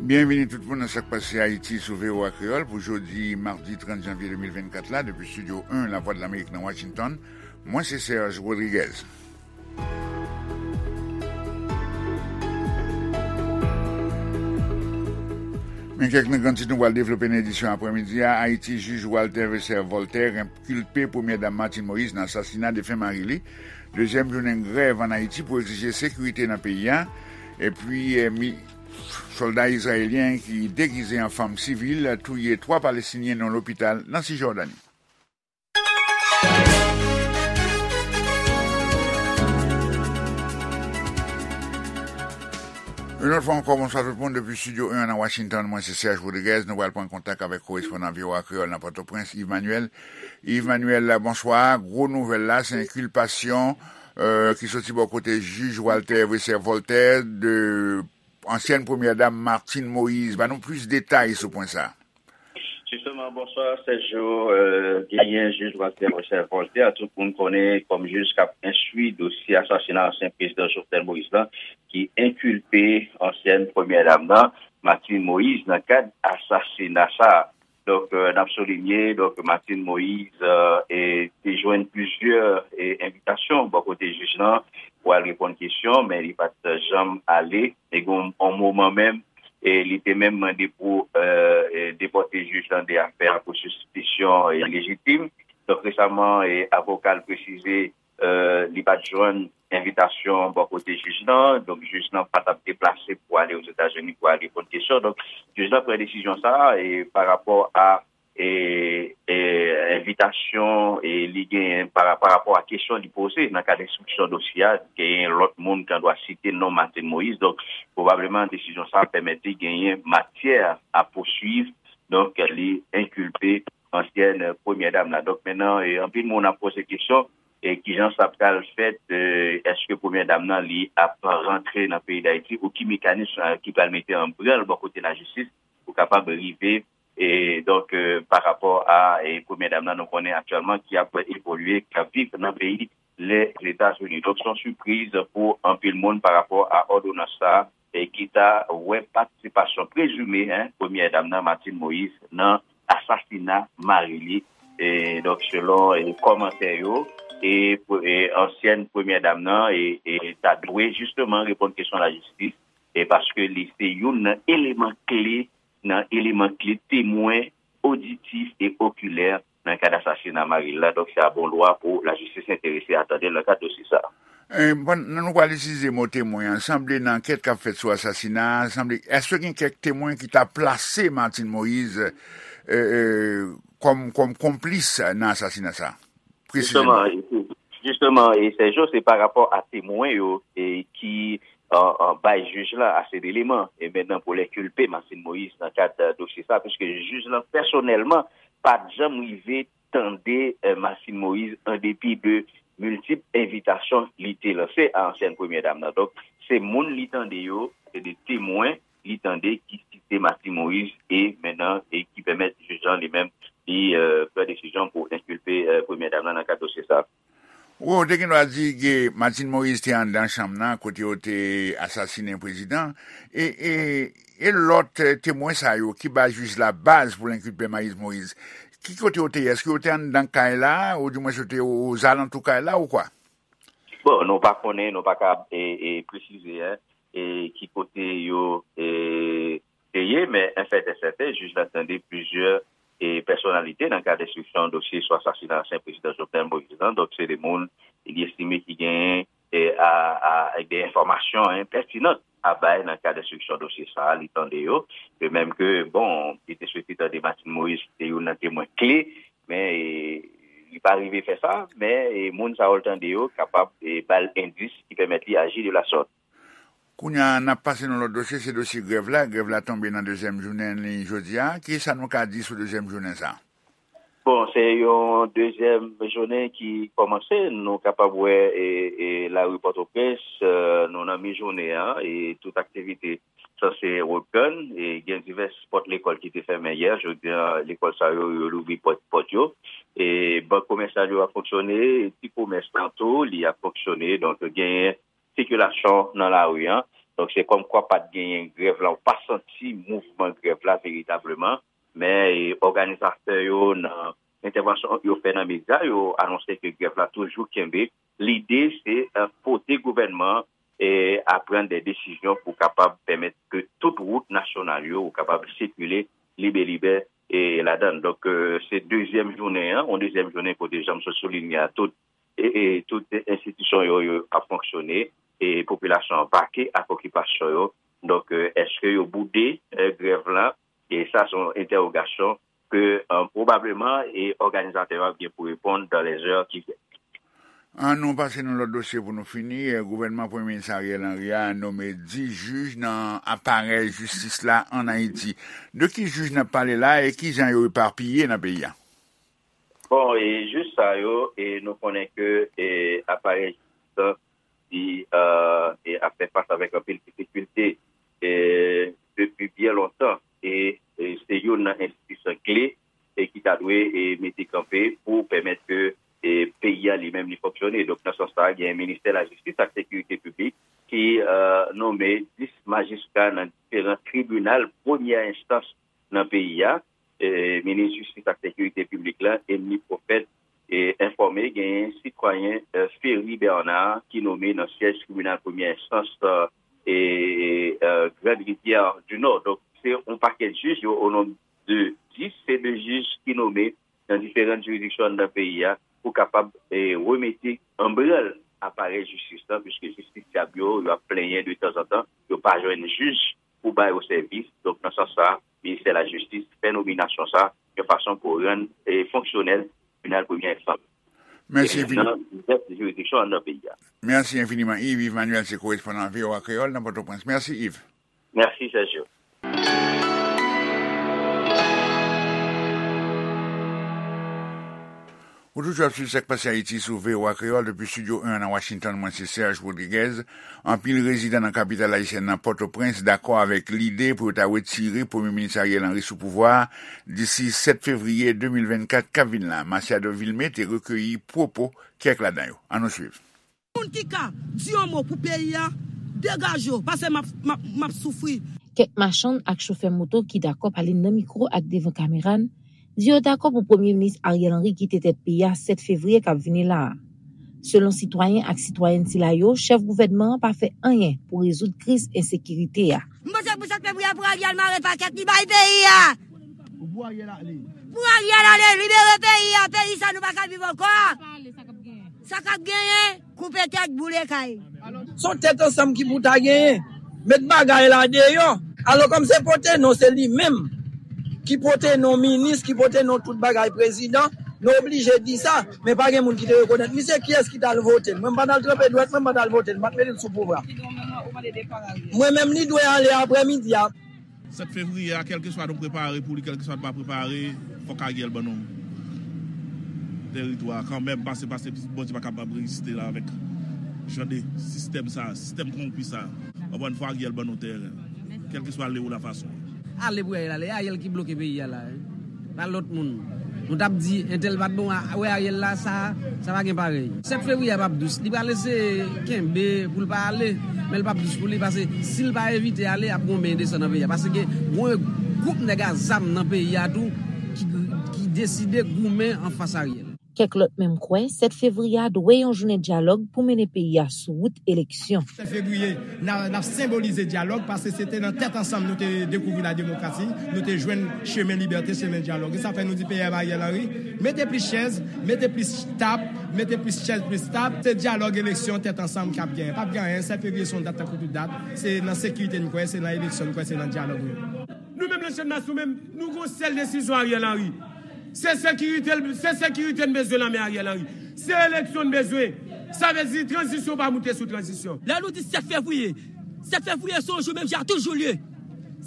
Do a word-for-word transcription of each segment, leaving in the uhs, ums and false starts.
Byenvini tout moun nan Sa k Pase Ayiti sou V O A Kreyòl pou jodi madi trant janvye de mil vennkat la, depi Estidyo en Lavwadlamerik nan Washington. Mwen se Serge Rodriguez. Men kèk nan gran tit nou pral devlope nan edisyon aprèmidi a. Ayiti, jij Walter Vesser Voltaire enkilpe Premyè Dam Martine Moïse nan asasina defen mari li. Dezyèm jounen grèv ann Ayiti pou egzije sekirite nan peyi a. Epi, eh, mi-, sòlda izrayelyen ki degize an fanm sivil touye twa Palestinyen nan lopital nan Sijòdani. Yon lòt fwa ankò, bonswa tout moun depi Estidyo en nan Washington. Mwen se Serge Rodriguez. Nou pral pran kontak avèk korespondan V O A Kreyòl nan Pòtoprens, Yves Manuel. Yves Manuel, bonswa. Gwo nouvèl la, se enkilpasyon, euh, ki soti bò kote jij Walter Vesser Voltaire de ansyèn premyè dam Martine Moïse. Ban nou plis detay sou pwen sa. Jisteman, bonswa, Sergio. Euh, genyen jij Walter Vesser Voltaire, tout moun konnen kòm jij k ap enstwi dosye asasina ansyen prezidan Jovenel Moïse la, ki enkilpe ansyèn premyè dam nan, Martine Moïse, nan kad asasina sa a. Donk, euh, n ap soulinye, donk, Martine Moïse, euh, e, te jwenn plizyè, e, envitasyon bò kote jij lan pou al reponn kesyon, men li pa t janm ale. E gen yon moman menm, e, li te menm mande pou, euh, e, depòte jij lan de afè a pou sispisyon, e, ilejitim. Donk, resaman, e, avoka l presize, euh, li pa t jwenn envitasyon bò kote jij lan. Donk, jij lan pa t ap deplase pou ale Ozetazini pou al reponn kesyon. Donk, jij lan pran desizyon sa a, e, pa rapò a, e, e, envitasyon, e, li genyen pa, pa rapò a kesyon li poze nan kad enstriksyon dosye a, genyen lòt moun ki an dwa site non Martine Moïse. Donk, pwobableman, desizyon sa a pèmèt li genyen matyè a pouswiv. Donk, li enkilpe ansyèn premyè dam la. Donk, mentnan, e, anpil moun ap poze kesyon, e, kijan sa pral fèt, e, èske premyè dam nan, li ap rantre nan peyi Dayiti, ou ki mekanis, e, ki pral mete an branl bò kote lajistis pou kapab rive, e, donk, e, pa rapò a, e, premyè dam nan, nou konnen aktyèlman ki ap evolye, k ap viv nan peyi Lèzetazini. Donk, se yon sipriz pou anpil moun pa rapò a òdonans sa a, e ki ta wè patisipasyon prezime, en, premyè dam nan, Martine Moïse, nan asasina mari li. E, donk, selon, e, kòmantè yo, e, pre-, e, ansyèn premyè dam nan, e, e, ta dwe jisteman reponn kesyon lajistis, e paske li se youn nan eleman kle, nan eleman kle temwen oditif e okilè nan kad asasina mari l la. Donk, se a bon dwa pou lajistis enterese a tande l nan kad dosye sa a. E, pandan nou pral itilize mo temwen an, sanble nan ankèt k ap fèt sou asasina a, sanble, èske gen kèk temwen ki ta plase Martine Moïse, e, e, kòm, kòm konplis nan asasina sa a? Presizeman. Jisteman, e, jisteman, e, Sergio, se pa rapò a temwen yo, e, ki, e, e, bay jij la ase deleman, e mentnan pou l enkilpe Martine Moïse nan kad, e, dosye sa, piske jij lan pèsonèlman pa t janm rive tande, e, Martine Moïse, an depi de miltip envitasyon li te lanse a ansyèn premyè dam nan. Donk, se moun li tande yo, se de temwen li tande ki site Martine Moïse, e mentnan, e ki pèmèt jij lan li menm, li, e, pran desizyon pou enkilpe, e, premyè dam nan nan kad dosye sa. Wi, ou te gen dwa di ke Martine Moïse te anndan chanm nan, kote yo te asasinen prezidan. E, e, e lòt, e, temwen sa yo ki ba jij la baz pou l enkilpe Martine Moïse, ki kote yo te ye? Èske yo te anndan kay la, oudimwens yo te o-, ozalantou kay la, ou kwa? Bon, nou pa konnen, nou pa ka, e, e, presize, en, e, ki kote yo, e, te ye, men enfèt e sèten, jij la tande plizyè, e, pèsonalite nan kad enstriksyon dosye sou asasina ansyen prezidan Jovenel Moïse lan. Donk, se de moun li estime ki genyen, e, a, a, de enfòmasyon, en, pètinan a bay nan kad enstriksyon dosye sa a, li tande yo. De menm ke, bon, li te swete tande Martine Moïse, ki te youn nan temwen kle, men, e, li pa rive fè sa, men, e, moun sa yo l tande yo kapab, e, ba l endis ki pèmèt li aji de la sòt. Kounye a, n ap pase nan lòt dosye, se dosye grèv la. Grèv la tonbe nan dezyèm jounen li jodi a. Kisa nou ka di sou dezyèm jounen sa a? Bon, se yon dezyèm jounen ki kòmanse. Nou kapab wè, e, e, lari Pòtoprens, e, nou nan mi jounen an, e tout aktivite sanse reprann. E gen divès pòt lekòl ki te fèmen yè. Jodi a, lekòl sa yo, yo louvri pòt, pòt yo. E bank komèsyal yo ap fonksyone, ti komès lan tou, li ap fonksyone. Donk, genyen sikilasyon nan lari an. Donk, se kòmkwa pa t genyen grèv la, ou pa santi mouvman grèv la veritableman. Men, e, òganizatè yo, nan entèvansyon yo fè nan medya, yo anonse ke grèv la toujou kenbe. Lide, se, e, pote gouvènman e, a pran de desizyon pou kapab pèmèt ke tout wout nasyonal yo kapab sikile libelibè, e, ladan l. Donk, e, se dezyèm jounen an, yon dezyèm jounen kote, jan m sot soulinye a, tout, e, e, tout enstitisyon yo, yo ap fonksyone, e popilasyon an vake ak okipasyon yo. Donk, e, èske yo boude, e, grèv la? E sa se yon entèwogasyon ke, e, pwobableman, e, òganizatè yo ap gen pou reponn dans les heures qui viennent. An nou pase nan lòt dosye pou nou fini. E, gouvènman Premye Minis Ariel Henry a nome dis jij nan aparèy jistis la ann Ayiti. De ki jij n ap pale la e ki jan yo epapiye nan peyi a? Bon, e jij sa yo, e nou konnen ke, e, aparèy jistis la, li, e, e ap fè fas avèk anpil difikilte, e, depi byen lontan. E, e se youn nan enstitisyon kle, e ki ta dwe, e, mete kanpe pou pèmèt ke, e, peyi a li menm li fonksyone. Donk, nan sans sa, gen Ministè Lajistis ak Sekirite Piblik ki, e, nome dis majistra nan diferan tribinal premyè enstans nan peyi a. E, minis jistis ak sekirite piblik la, Emmeline Prophète, e, enfòme genyen sitwayen, e, Ferry Bernard ki nome nan syèj tribinal premyè enstans, e, e, e, Grande Rivière du Nord. Donk, se yon pakèt jij yo, o nonb de dis, se de jij ki nome nan diferan jiridiksyon anndan peyi a pou kapab, e, remete an branl aparèy jistis la, piske jistisyab yo, yo ap plenyen de tanzantan, yo pa jwenn jij pou ba yo sèvis. Donk, nan sans sa, Ministè Lajistis fè nominasyon sa yon fason pou rann, e, fonksyonèl tribinal premyè enstans, Mèsi e, enfini. Nan divès jiridiksyon anndan peyi a. Mèsi enfiniman, Yves. Yves Manuel se korespondan V O A Kreyòl nan Pòtoprens. Mèsi, Yves. Mèsi, Sergio. Ou toujou ap swiv Sa k Pase Ayiti sou V O A Kreyòl depi Estidyo en nan Washington. Mwen se Serge Rodriguez. Anpil rezidan nan kapital ayisyèn nan, Pòtoprens, dakò avèk lide pou yo ta retire Premye Minis Ariel Henry sou pouvwa a disi sèt fevriye de mil vennkat k ap vin la. Masiado Vilmé te rekeyi pwopo kèk ladan yo. Ann nou swiv. Moun ki ka di yon mo pou peyi a, degaje w, paske m ap, m ap, m ap soufri. Kèk machann ak chofè moto ki dakò pale nan mikwo ak devan kamera n di yo dakò pou Premye Minis Ariel Henry kite tèt peyi a sèt fevriye k ap vini la a. Selon sitwayen ak sitwayèn sila yo, chèf gouvènman an pa fè anyen pou rezoud kriz ensekirite a. M panse pou sèt fevriye pou Ariel mare pakèt li bay peyi a. Pou Ariel ale. Pou Ariel ale, libere peyi a, peyi sa nou pa ka viv ankò. Sa k ap genyen, koupe tèt, boule kay. Se yon tèt ansanm ki pou ta genyen. Met bagay la deyò. Alò, kòm se pote non, se li menm ki pote non minis, ki pote non tout bagay prezidan, nou oblije di sa. Men pa gen moun ki te rekonèt misye. Kiyès ki t al vote l? Mwen, m pa t al tranpe dwèt mwen, m pa t al vote l, m pa t mete l sou pouvwa. Mwen menm, li dwe ale aprèmidi a. Sèt fevriye a, kèlkeswa nou prepare pou li, kèlkeswa nou pa prepare, fòk Ariel ban nou teritwa kanmenm, pase, pase Bondye pa kapab reziste la avèk jan de sistèm sa, sistèm kowonpi sa. Ankò yon fwa, Ariel ban nou tè, kèlkeswa le ou la fason. Ale pou Ariel ale, Ariel ki bloke peyi a la. Pa lòt moun. Nou t ap di, entèl pa t bon, a, wè Ariel la, sa, sa pa gen parèy. Sèt fevriye a p ap dous. Li pral eseye kenbe pou l pa ale, men l p ap dous pou li, paske si l pa evite ale, ap gen yon men desann nan peyi a. Paske gen yon gwoup nèg a zam nan peyi a tou ki, ki deside goumen anfas Ariel. Kèk lòt menm kwè, sèt fevriye a dwe yon jounen dyalòg pou mennen peyi a sou wout eleksyon. Sèt fevriye, n a, n ap senbolize dyalòg, paske se te nan tèt ansanm nou te dekouvri la demokrasi, nou te jwenn chemen libète, chemen dyalòg. E sa fè nou di P M Ariel Henry, mete plis chèz, mete plis tab, mete plis chèz, plis tab. Se dyalòg, eleksyon, tèt ansanm k ap genyen. P ap gen anyen, sèt fevriye se yon dat tankou tout dat. Se nan sekirite n kwè, se nan eleksyon n kwè, se nan dyalòg nou. Nou menm nan Chanm Nasyon menm, nou gon sèl desizyon Ariel Henry. Se sekirite, se sekirite n bezwen nan men Ariel Henry. Se eleksyon n bezwen. Sa vle di tranzisyon pa moute sou tranzisyon. Lè nou di sèt fevriye, sèt fevriye se yon jou menm jan a tout jou l ye.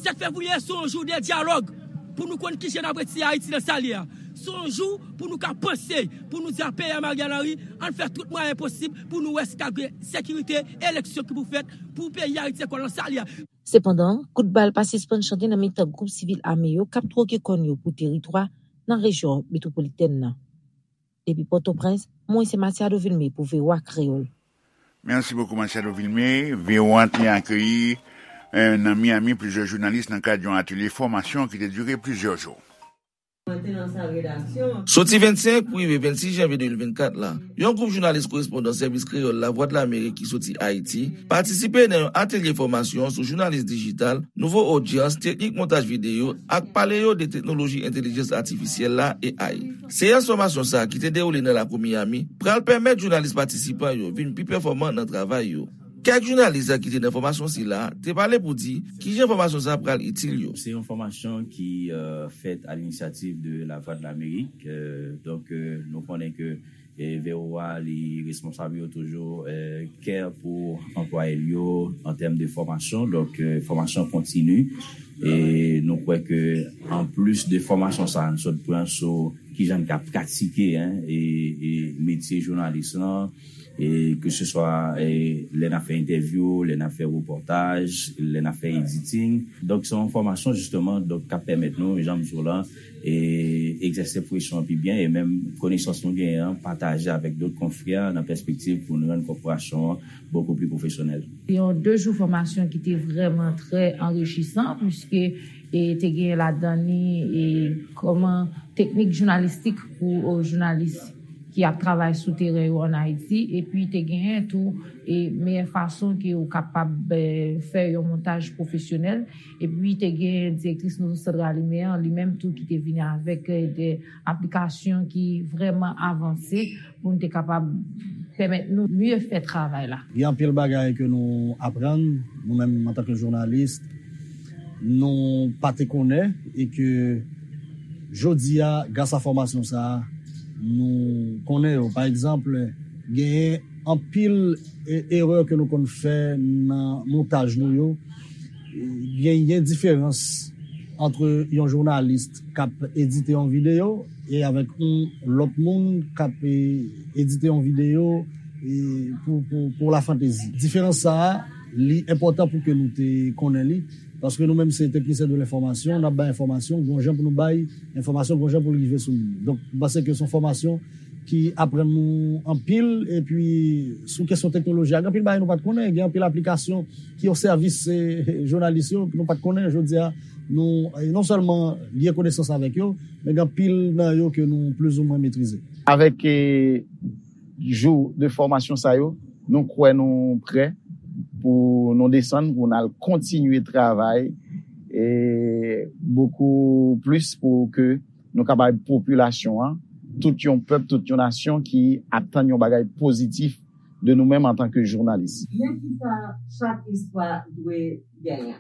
Sèt fevriye se yon jou de dyalòg pou nou konn kijan n ap retire Ayiti nan sa l ye a. Se yon jou pou nou ka panse, pou nou di a P M Ariel Henry, ann fè tout mwayen posib pou nou wè si ka gen sekirite, eleksyon ki pou fèt pou peyi Ayiti ankò nan sa l ye a. Sepandan, kout bal pa sispann chante nan mitan gwoup sivil ame yo k ap twoke kòn yo pou teritwa nan rejyon metwopolitèn nan. Depi Pòtoprens, mwen se Matiado Vilmé pou V O A Kreyòl. Merci beaucoup, Machado Vilmé. V O A te akeyi, eh, nan Miami, plizyè jounalis nan kad yon atelye fòmasyon ki te dire plizyè jou. Soti vennsenk pou rive vennsis janvye de mil vennkat la, yon gwoup jounalis korespondan Sèvis Kreyòl Lavwadlamerik ki soti Ayiti patisipe nan yon atelye fòmasyon sou jounalis dijital, nouvo odyans, teknik montaj videyo ak pale yo de teknoloji entèlijans atifisyèl la, A I. Seyans fòmasyon sa a ki te dewoule nan lakou Miami pral pèmèt jounalis patisipan yo vin pi pèfòman nan travay yo. Kèk jounalis ki te nan fòmasyon sila te pale pou di kijan fòmasyon sa a pral itil yo. Se yon fòmasyon ki, euh, fèt à l'initiative de La Voix de l'Amérique. Euh, donk, euh, nou konnen ke, eh, V O A li responsab yo toujou, eh, care pou anplwaye l yo an tèm de fòmasyon. Donk, eh, fòmasyon kontini. E nou kwè ke anplis de fòmasyon sa a nou sot pran sou kijan n ka pratike, en, e, e metye jounalis lan, e ke se swa, e, lè n ap fè entèvyou, lè n ap fè repòtaj, lè n ap fè editing. Donk, se yon fòmasyon, jisteman, donk, k ap pèmèt nou, jan m di w lan, e egzèse pwofesyon an pi byen, e menm konesans nou genyen an, pataje avèk dòt konfrè nan pèspektiv pou nou rann kòporasyon an bokou pli pwofesyonèl. Se yon de jou fòmasyon ki te vrèman trè anrichisan, piske, e, te gen ladan li, e, kòman teknik jounalistik pou, e, jounalis ki ap travay sou teren yo ann Ayiti, epi te genyen tou, e, meyè fason ke ou kapab, e, fè yon montaj pwofesyonèl, epi te gen direktris nouvo sant Ralime an, li menm tou ki te vini avèk, e, de aplikasyon ki vrèman avanse pou n te kapab pèmèt nou mye fè travay la. Gen anpil bagay ke nou aprann, nou menm antanke jounalis, nou pa te konnen, e ke jodi a, gras a fòmasyon sa a, nou konnen yo. Pa egzanp, genyen anpil, e, erè ke nou konn fè nan montaj nou yo. Genyen diferans ant yon jounalis k ap edite yon videyo e avèk yon lòt moun k ap, e, edite yon videyo, e, pou, pou, pou lafantezi. Diferans sa a, li enpòtan pou ke nou te konnen li, paske nou menm se teknisyen de lenfòmasyon, n ap bay enfòmasyon, gon jan pou nou bay enfòmasyon, gon jan pou l rive sou moun. Donk, m panse ke se yon fòmasyon ki aprann nou anpil, epi sou kesyon teknoloji a, gen anpil bagay nou pa t konnen, gen anpil aplikasyon ki o sèvis, e, jounalis yo, nou pa t konnen, jodi a, nou, e, non sèlman lye konesans avèk yo, men gen anpil nan yo ke nou plizoumwen metrize. Avèk, e, jou de fòmasyon sa yo, nou kwè nou prè pou nou desann, pou n al kontinye travay, e, bokou plis pou ke nou ka bay popilasyon an, tout yon pèp, tout yon nasyon ki atann yon bagay pozitif de nou menm antanke jounalis. Men kisa chak istwa dwe genyen.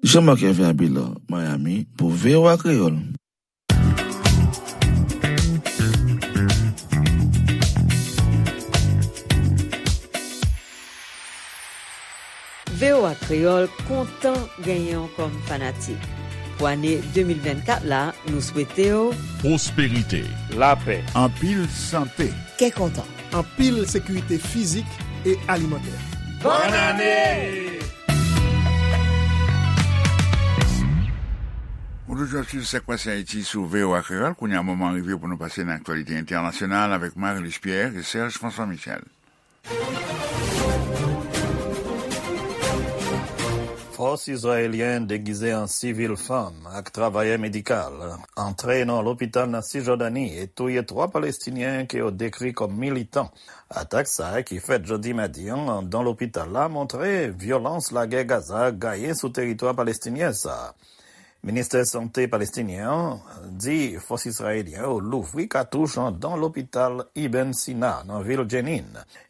Jean-Marc Hervé Abelard, Miami, pou V O A Kreyòl. V O A Kreyòl kontan genyen w kòm fanatik. Pou ane de mil vennkat la, nou swete w pwosperite, lapè, anpil sante, kè kontan, anpil sekirite fizik e alimantè. Bòn ane! Ou toujou ap swiv Sa k Pase Ayiti sou V O A Kreyòl. Kounye a, moman rive pou nou pase nan aktyalite entènasyonal avèk Marie-Luce Pierre e Serge François Michel. Fòs izrayelyen degize an sivil fanm ak travayè medikal antre nan lopital nan Sijòdani e touye twa Palestinyen ke yo dekri kòm militan. Atak sa a, ki fèt jodi madi an anndan lopital la, montre vyolans lagè Gaza gaye sou teritwa palestinyen sa a. Ministè Sante palestinyen an di fòs izrayelyen yo louvri katouch anndan lopital Ibn Sina nan vil Jenin.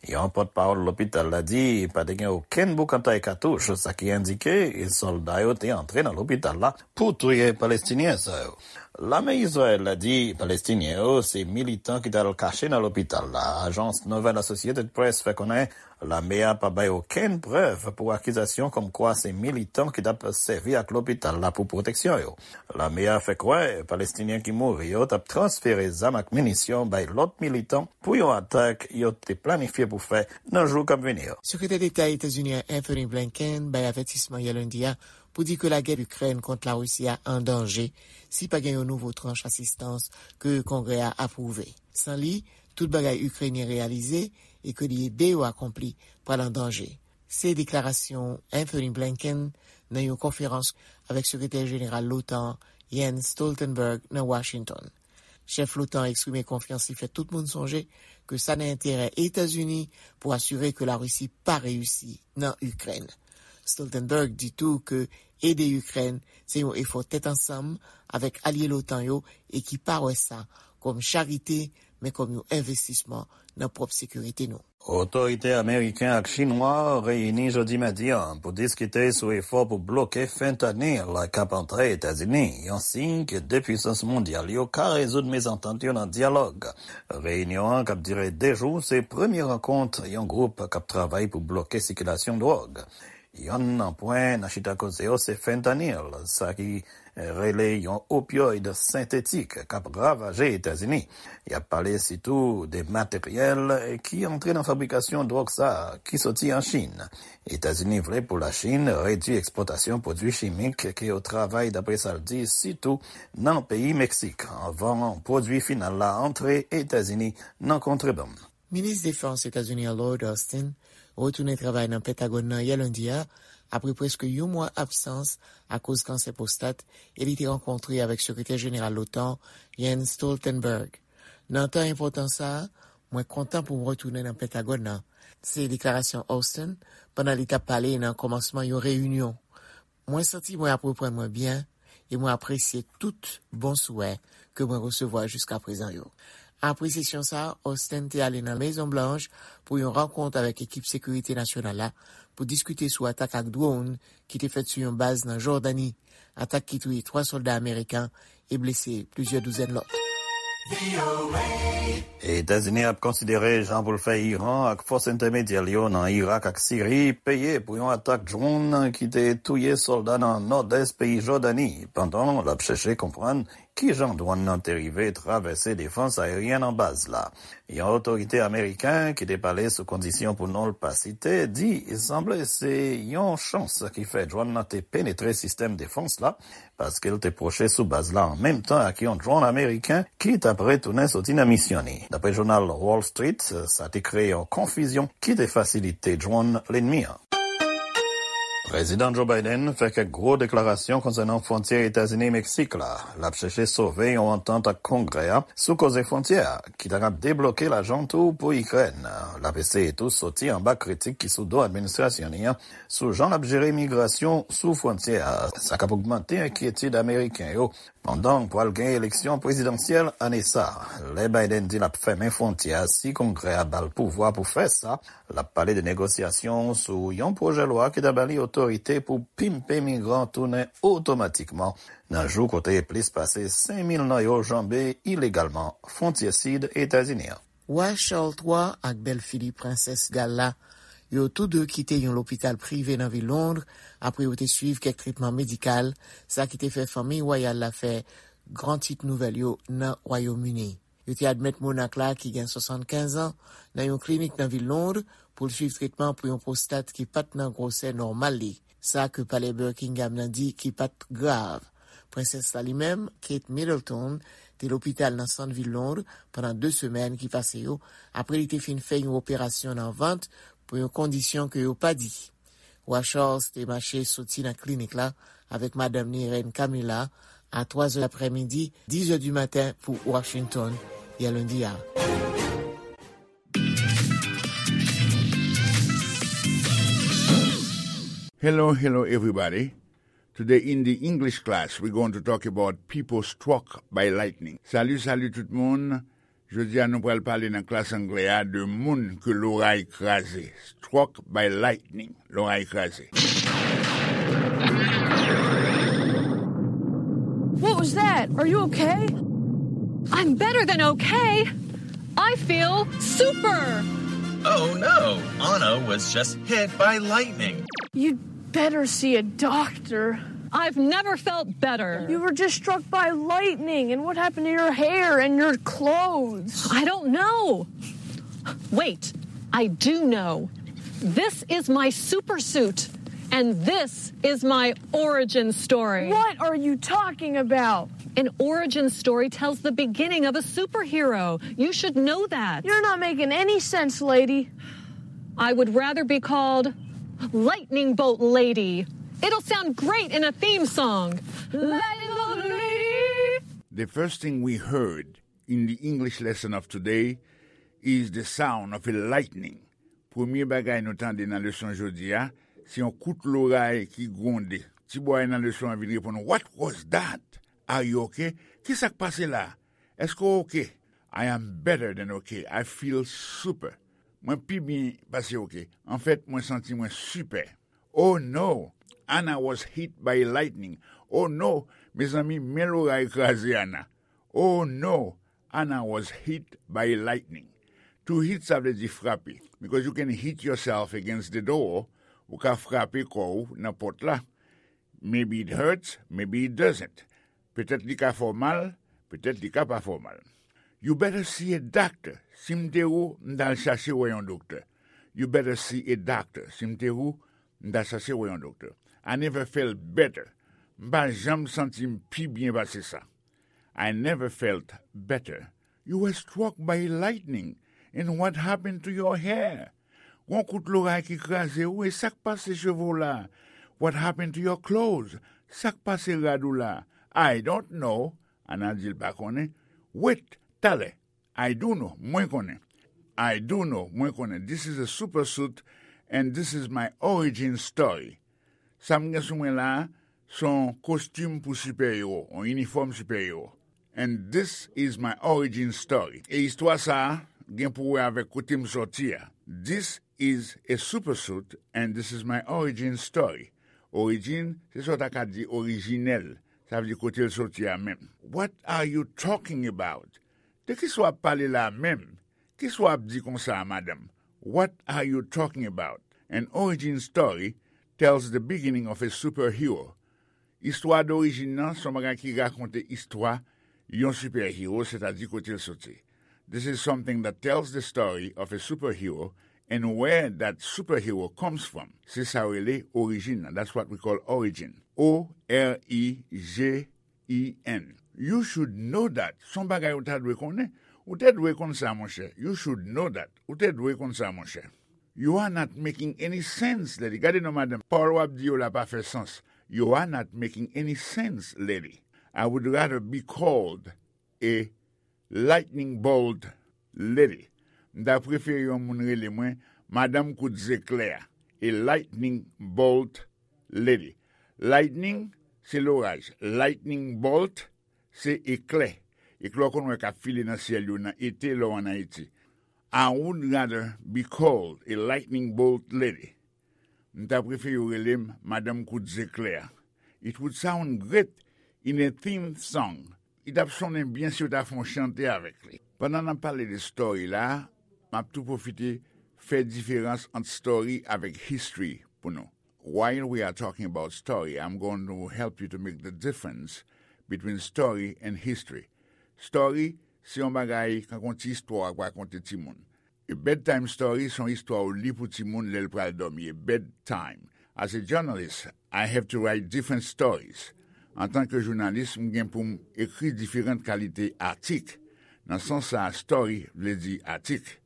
Yon pòtpawòl lopital la di pa te gen okenn boukantay katouch, sa ki endike sòlda yo te antre nan lopital la pou touye Palestinyen sa yo. Lame Izrayèl la di Palestinyen yo se militan ki t al kache nan lopital la. Ajans nouvèl Associated Press fè konnen lame a pa bay okenn prèv pou akizasyon kòmkwa se militan ki t ap sèvi ak lopital la pou pwoteksyon yo. Lame a fè kwè Palestinyen ki mouri yo t ap transfere zam ak minisyon bay lòt militan pou yon atak yo te planifye pou fè nan jou k ap vini yo. Sekretè Deta Etazini an Anthony Blinken bay avètisman yè lendi a pou di ke lagè Ikrèn kont Larisi a an danje si pa gen yon nouvo tranch asistans ke Kongrè a apwouve. San li, tout bagay Ikrenyen reyalize e ke li ede yo akonpli pral an danje. Se deklarasyon Anthony Blinken nan yon konferans avèk Sekretè Jeneral l'OTAN, Jens Stoltenberg, nan Washington. Chèf l'OTAN eksprime konfyans li fè tout moun sonje ke sa nan enterè Etazini pou asire ke Larisi pa reyisi nan Ikrèn. Stoltenberg di tou ke ede Ikrèn se yon efò tèt ansanm avèk alye l'OTAN yo e ki pa wè sa kòm charite, men kòm yon envestisman nan pwòp sekirite nou. Otorite ameriken ak chinwa reyini jodi madi a pou diskite sou efò pou bloke fentanyl k ap antre Etazini, yon siy ke de pwisans mondyal yo ka rezoud mezantant yo nan dyalòg. Reyinyon an, k ap dire de jou, se premye rankont yon gwoup k ap travay pou bloke sikilasyon dwòg. Yonn nan pwen nan chita koze yo se fentanyl, sa ki rele yon opioid sentetik k ap ravaje Etazini. Y ap pale sitou de materyèl ki antre nan fabrikasyon dwòg sa a, ki soti an Chin. Etazini vle pou Lachin redui ekspòtasyon pwodui chimik ke yo travay, dapre sa l di, sitou nan peyi Meksik, anvan pwodui final la antre Etazini nan kontrebann. Minis Defans Etazini an Lloyd Austin retounen travay nan Pentagòn nan yè lendi a, apre prèske yon mwa absans akoz kansè pwostat, e li te rankontre avèk Sekretè Jeneral l'OTAN, Jens Stoltenberg. Nan tan enpòtan sa a, mwen kontan pou m retounen nan Pentagòn nan, se deklarasyon Austin pandan li t ap pale nan kòmansman yon reyinyon. Mwen santi mwen ap reprann mwen byen e mwen apresye tout bon souwè ke mwen resevwa jiskaprezan yo. Apre sesyon sa a, Austin te ale nan Mezon Blanch pou yon rankont avèk ekip sekirite nasyonal la pou diskite sou atak ak dwòn ki te fèt sou yon baz nan Jòdani, atak ki touye twa sòlda ameriken e blese plizyè douzèn lòt. Etazini ap konsidere jan pou l fè Iran ak fòs entèmedyè l yo nan Irak ak Siri peye pou yon atak dwòn ki te touye sòlda nan nòdès peyi Jòdani, pandan l ap chèche konprann kijan dwòn nan te rive travèse defans aeryèn an baz la. Yon otorite ameriken ki te pale sou kondisyon pou non l pa site di sanble se yon chans ki fè dwòn nan te penetre sistèm defans la, paske l te pwoche sou baz la an menm tan ak yon dwòn ameriken ki t ap retounen soti nan misyon li. Dapre jounal Wall Street, sa te kreye yon konfizyon ki te fasilite dwòn lènmi an. Prezidan Joe Biden fè kèk gwo deklarasyon konsènan fwontyè Etazini-Meksik la. L ap chèche sove yon antant ak Kongrè a sou koze fwontyè a, ki ta kab debloke lajan tou pou Ikrèn. L ap eseye tou soti anba kritik ki sou do administrasyon li an sou jan l ap jere migrasyon sou fwontyè a. Sa k ap ogmante enkyetid ameriken yo pandan pral gen eleksyon prezidansyèl ane sa a. Lè Biden di l ap fèmen fwontyè a si Kongrè a ba l pouvwa pou fè sa, l ap pale de negosyasyon sou yon pwojè lwa ki ta ba li otorite pou pimpe migran tounen otomatikman nan jou kote plis pase senk mil nan yo janbe ilegalman fwontyè sid Etazini an. Wa Charles twa ak bèlfi li, Prensès Gal la, yo tou de kite yon lopital prive nan vil Lond apre yo te swiv kèk tretman medikal, sa ki te fè fanmi wayal la fè gran tit nouvèl yo nan Wayòm Ini. Yo te admèt monak la ki gen swasannkenz an nan yon klinik nan vil Lond pou l swiv tretman pou yon pwostat ki pa t nan gwosè nòmal li, sa ke palè Buckingham nan di ki pa t grav. Prensès la li menm, Kate Middleton, te lopital nan sant vil Lond pandan de semèn ki pase yo, apre li te fin fè yon operasyon nan vant pou yon kondisyon ke yo pa di. Wa Charles te mache soti nan klinik la avèk madanm ni, Rèn Camilla, a twa zè aprèmidi, diz heures du matin pou Washington, yè lendi a. Hello, hello, everybody. Today in the English class, we're going to talk about people struck by lightning. Salut, salut tout moun. Jodi a, nou pral pale nan klas anglè a de moun ke loray kraze. Struck by lightning, loray kraze. What was that? Are you okay? I'm better than okay. I feel super. Oh no, Anna was just hit by lightning. You'd better see a doctor. I've never felt better. You were just struck by lightning, and what happened to your hair and your clothes? I don't know. Wait, I do know. This is my super suit. And this is my origin story. What are you talking about? An origin story tells the beginning of a superhero. You should know that. You're not making any sense, lady. I would rather be called Lightning Bolt Lady. It'll sound great in a theme song. Lightning Bolt Lady. The first thing we heard in the English lesson of today is the sound of a lightning. Premye bagay nou tande nan leson jodi a, se yon kout loray ki gwonde. Ti bòy nan leson an vin reponn, "What was that? Are you okay? Ki sa k pase la? Èske w oke?" "I am better than okay. I feel super." Mwen pi byen pase oke. Anfèt, mwen santi mwen sipè. "Oh no, Anna was hit by lightning." "Oh no, mezanmi, men loray kraze Anna." "Oh no, Anna was hit by lightning." To hit, sa vle di frape. Because you can hit yourself against the door, ou ka frape kò w nan pòt la. Maybe it hurts, maybe it doesn't. Petèt li ka fè w mal, petèt li ka pa fè w mal. "You better see a doctor." Si m te ou, m t al chache wè yon doktè. "You better see a doctor." Si m te ou, m t al chache wè yon doktè. "I never felt better." M pa janm santi m pi byen pase sa. "I never felt better." "You were struck by lightning, and what happened to your hair?" Gon kout loray ki kraze ou, e sa k pase cheve w la? "What happened to your clothes?" Sa k pase rad ou la? "I don't know." Anna di l pa konnen. "Wait, talè." "I do know." Mwen konnen. "I do know." Mwen konnen. This is a super suit, and this is my origin story. Sa m gen sou mwen la a, se yon kostim pou sipè ewo, yon inifòm sipè ewo. "And this is my origin story." E istwa sa a gen pou wè avèk kote m sòti a. "This is a super suit, and this is my origin story." Origin, se sa w ta ka di orijinèl. Sa vle di kote l sòti a menm. "What are you talking about?" De ki sa w ap pale la menm? Ki sa w ap di konsa a, madanm? "What are you talking about?" An origin story tells the beginning of a superhero. Istwa dorijin nan se yon bagay ki rakonte istwa yon sipè-ewo, sètadi kote l soti. This is something that tells the story of a superhero and where that superhero comes from. Se sa yo rele orijin nan. That's what we call origin. O R I J I N. You should know that. Se yon bagay ou ta dwe konnen. Ou te dwe konn sa, monchè. You should know that. Ou te dwe konn sa, monchè. You are not making any sense, lady. Gade non, madanm. Pawòl w ap di yo la pa fè sans. You are not making any sense, lady. I would rather be called a lightning bolt lady. M ta prefere yon moun rele mwen madanm kout zeklè a. A lightning bolt lady. Lightning, se loraj. Lightning bolt, se eklè. Eklè w konn wè k ap file nan syèl yo nan ete lè w ann Ayiti. I would rather be called a lightning bolt lady. M ta prefere yo rele m madanm kout zeklè a. It would sound great in a theme song. Li t ap sonnen byen si yo ta fè yon chante avèk li. Pandan n ap pale de story la, m ap tou pwofite fè diferans ant story avèk history pou nou. While we are talking about story, I'm going to help you to make the difference between story and history. Story, se yon bagay, kankou yon ti istwa w ap rakonte timoun. A bedtime story se yon istwa w li pou timoun lè l pral dòmi. A bedtime. As a journalist, I have to write different stories. Antanke jounalis, m gen pou m ekri diferan kalite atik. Nan sans sa a, story vle di atik.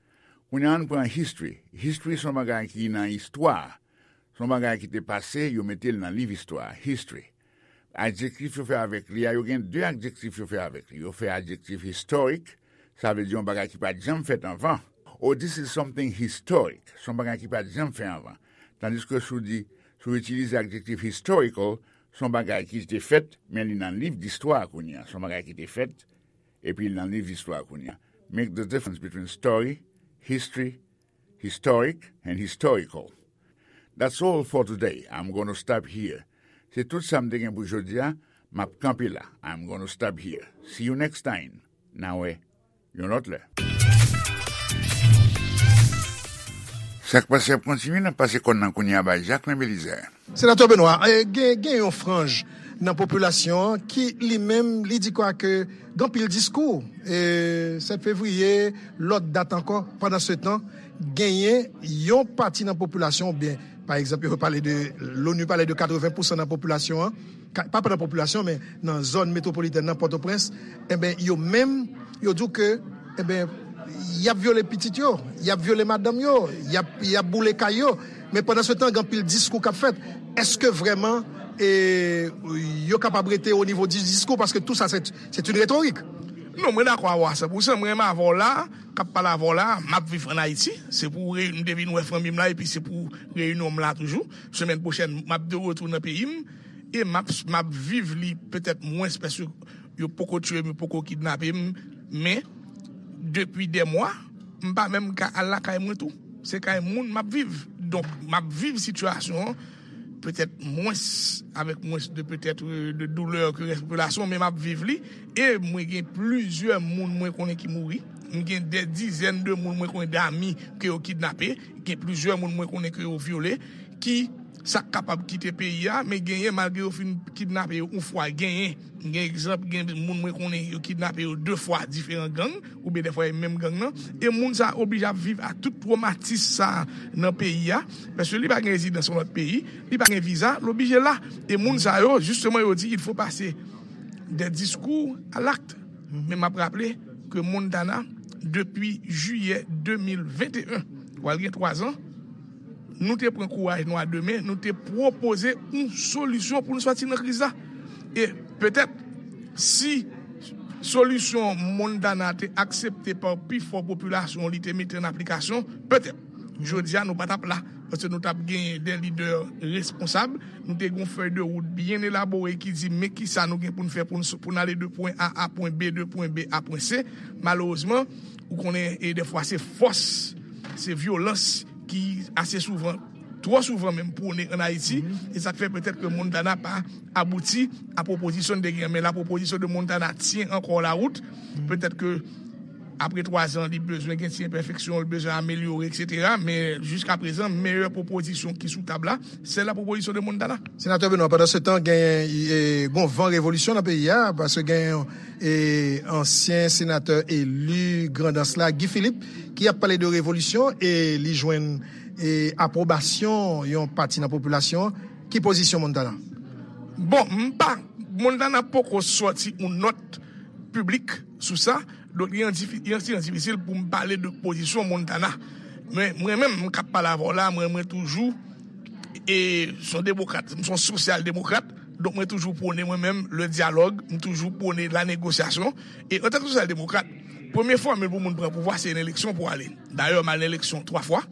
Kounye a, ann pran history. History se yon bagay ki nan istwa. Se yon bagay ki te pase, yo mete l nan liv istwa. History. Adjektif yo fè avèk li a, yo gen de adjektif yo fè avèk li. Yo fè adjektif historic, sa vle di yon bagay ki pa t janm fèt anvan. Oh, this is something historic. Se yon bagay ki pa t janm fèt anvan. Tandiske si w di, si w itilize adjektif historical, se yon bagay ki te fèt, men li nan liv distwa kounye a. Se yon bagay ki te fèt, epi li nan liv distwa kounye a. Make the difference between story, history, historic, and historical. That's all for today. I'm gonna stop here. Se tout sa m te gen pou jodi a. M ap kanpe la. I'm gonna stop here. See you next time. N a wè yon lòt lè. Sa k pase ap kontinye, n ap pase kòn nan kounye a bay Jacquelin Belizaire. Senatè Benoît, eh, gen, gen yon franj nan popilasyon an ki li menm li di kwake gen anpil diskou, eh, sèt fevriye, lòt dat ankò. Pandansetan, genyen yon pati nan popilasyon oubyen Pa egzanp, yo pale de, l'ONU pale de katreven pousan nan popilasyon an, ka- pa nan popilasyon, men nan zòn metwopolitèn nan, Pòtoprens, enben, yo menm, yo di w ke, enben, y ap vyole pitit yo, y ap vyole madanm yo, y ap, y ap boule kay yo. Men pandan se tan, gen anpil diskou k ap fèt. Èske vrèman e, yo kapab rete o nivo di diskou? Paske tou sa, se, se yon retorik. Non, mwen dakò avè w a san pousan. Mwen menm avè w la, k ap pale avè w la, m ap viv ann Ayiti. Se pou reyinyon m te vin wè fanmi m la, epi se pou reyinyon m la toujou. Semèn pwochèn, m ap de retour nan peyi m. E m ap, m ap viv li petèt mwens, paske yo poko tiye m, yo poko kidnape m. Men, depi dè mwa, m pa menm ka al lakay mwen tou. Se kay moun m ap viv. Donk, m ap viv sitiyasyon an petèt mwens, avèk mwens de petèt, euh, de doulè ke rès popilasyon, men m ap viv li. E mwen gen plizyè moun mwen konnen ki mouri. M gen dè dizèn de moun mwen konnen, dami ke yo kidnape. Gen plizyè moun mwen konnen ke yo vyole. Ki sa k kapab kite peyi a, men genyen, malgre yo fin kidnape yo yon fwa, genyen. Gen egzanp, gen moun mwen konnen yo kidnape yo de fwa diferan gang, oubyen dèfwa e menm gang nan. E moun sa a oblije ap viv a tout twomatis sa a nan peyi a, paske li pa gen rezidans yon lòt peyi, li pa gen viza, l oblije la. E moun sa yo, jisteman, yo di, il faut passer des discours à l'acte. Men m ap raple ke Montana, depi jiyè de mil venteyen, pral gen twa zan, nou te pran kouraj nou a de men, nou te pwopoze yon solisyon pou nou sòti nan kriz la. E petèt, si solisyon Montana te aksepte pa pifò popilasyon, li te mete an aplikasyon, petèt, jodi a, nou pa t ap la. Paske nou t ap genyen de lidè responsab. Nou te gen yon fèy de wout byen elabore ki di men kisa nou gen pou n fè pou n, pou n ale de pwen A a pwen B, de pwen B a pwen C. Malerezman, ou konnen, e dèfwa se fòs, se vyolans ki ase souvan, twò souvan menm, pwone ann Ayiti. E sa k fè petèt ke Montana pa abouti a pwopozisyon n te gen. Men la proposition de Montana tient encore la route. Petèt ke apre twa zan, li bezwen gen ti enpèfeksyon, li bezwen amelyore, etsetera. Men jiska prezan, meyè pwopozisyon ki sou tab la, se la proposition de Montana. Senatè Benoît, pandan se tan, gen, e, gon van revolisyon nan peyi a, paske gen, e, ansyen senatè eli Grandans la, Guy Philippe, ki ap pale de revolisyon, e li jwenn, e, apwobasyon yon pati nan popilasyon. Ki pozisyon Montana? Bon, m pa, Montana poko sòti yon nòt piblik sou sa. Donk, li an difi-, li an ti jan difisil pou m pale de pozisyon Montana. Men, mwen menm, m k ap pale avè w la, mwen, mwen toujou, e, se yon demokrat, m se yon sosyal demokrat. Donk, mwen toujou pwone, mwen menm, le dyalòg, m toujou pwone la négociation. E, antanke sosyal demokrat, premye fòmil pou moun pran pouvwa, se yon eleksyon pou ale. Dayè, m al nan eleksyon twa fwa.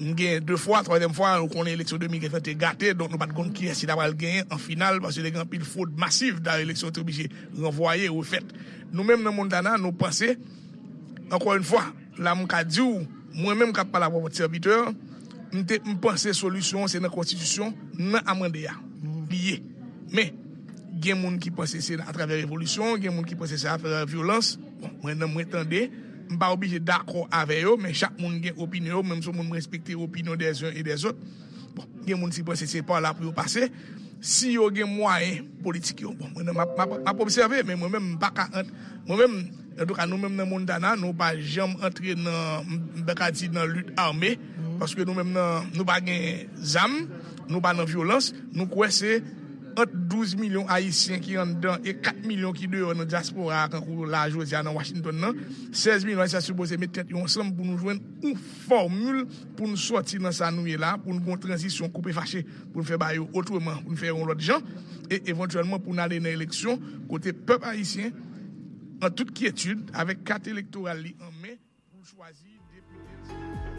M gen de fwa, twazyèm fwa, nou konnen eleksyon de mil ven te gate, donk nou pa t konn kiyès ki ta pral genyen an final, paske te gen anpil fwod masiv, dayè eleksyon te oblije ranvwaye, refèt. Nou menm nan Montana, nou panse, ankò yon fwa, la m ka di w, mwen menm k ap pale avè w, sèvitè, m te, m panse solisyon an se nan konstitisyon, nan amande a, li ye. Men, gen moun ki panse se atravè revolisyon, gen moun ki panse se atravè vyolans. Bon, mwen, nan mwen tande, m pa oblije dakò avè yo, men chak moun gen opinyon yo, mwen m se yon moun m respekte opinyon des uns et des autres. Bon, gen moun ki panse se pa la pou yo pase. Si yo gen mwayen politik yo, bon, mwen, m ap, m ap, m ap obsève, men mwen menm, m pa ka ant-, mwen menm, antouka, nou menm nan Montana, nou pa janm antre nan, m, m ta ka di nan lit ame, paske nou menm nan, nou pa gen zam, nou pa nan vyolans, nou kwè se ant douz milyon Ayisyen ki anndan e kat milyon ki deyò nan dyaspora a, kankou la jodi a nan Washington nan, sèz milyon Ayisyen sipoze met tèt yo ansanm pou nou jwenn yon fòmil pou nou sòti nan sa nou ye la, pou nou gen yon tranzisyon koupe fache, pou nou fè bagay yo otreman, pou nou fè yon lòt jan, e evantyèlman pou nou ale nan eleksyon, kote pèp ayisyen, an tout kyetid, avèk kat elektoral li an men, pou l chwazi depite l.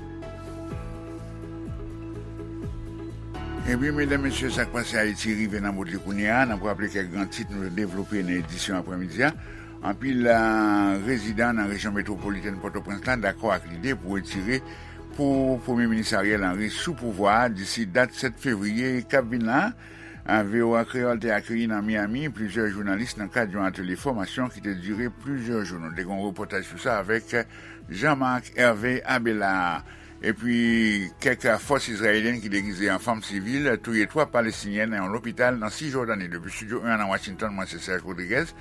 Ebyen, medam, mesye, sa k pase Ayiti rive nan bout li kounye a. N ap raple kèk gran tit nou te devlope nan edisyon aprèmidi a. Anpil, a, rezidan nan rejyon metwopolitèn Pòtoprens la dakò ak lide pou retire pou Premye Minis Ariel Henry sou pouvwa a disi dat sèt fevriye k ap vin la. A, V O A Kreyòl te akeyi nan Miami plizyè jounalis nan kad yon atelye fòmasyon ki te dire plizyè jou. Nou te gen yon repòtaj sou sa avèk Jean-Marc Hervé Abelard. Epi, kèk fòs izrayelyèn ki degize an fanm sivil touye twa Palestinyen nan yon lopital nan Sijòdani. Depi Estidyo en an nan Washington, mwen se Serge Rodriguez.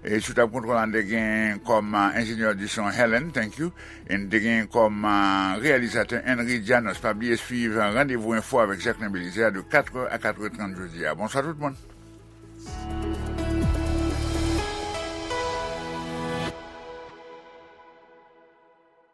E sou tab kontwòl la, n te gen kòm enjenyè di son Helen, thank you. E n te gen kòm reyalizatè Henry Janos. Pa bliye swiv Randevou Enfo avèk Jacquelin Belizaire de katr è a katr è trant jodi a. Bonswa tout moun.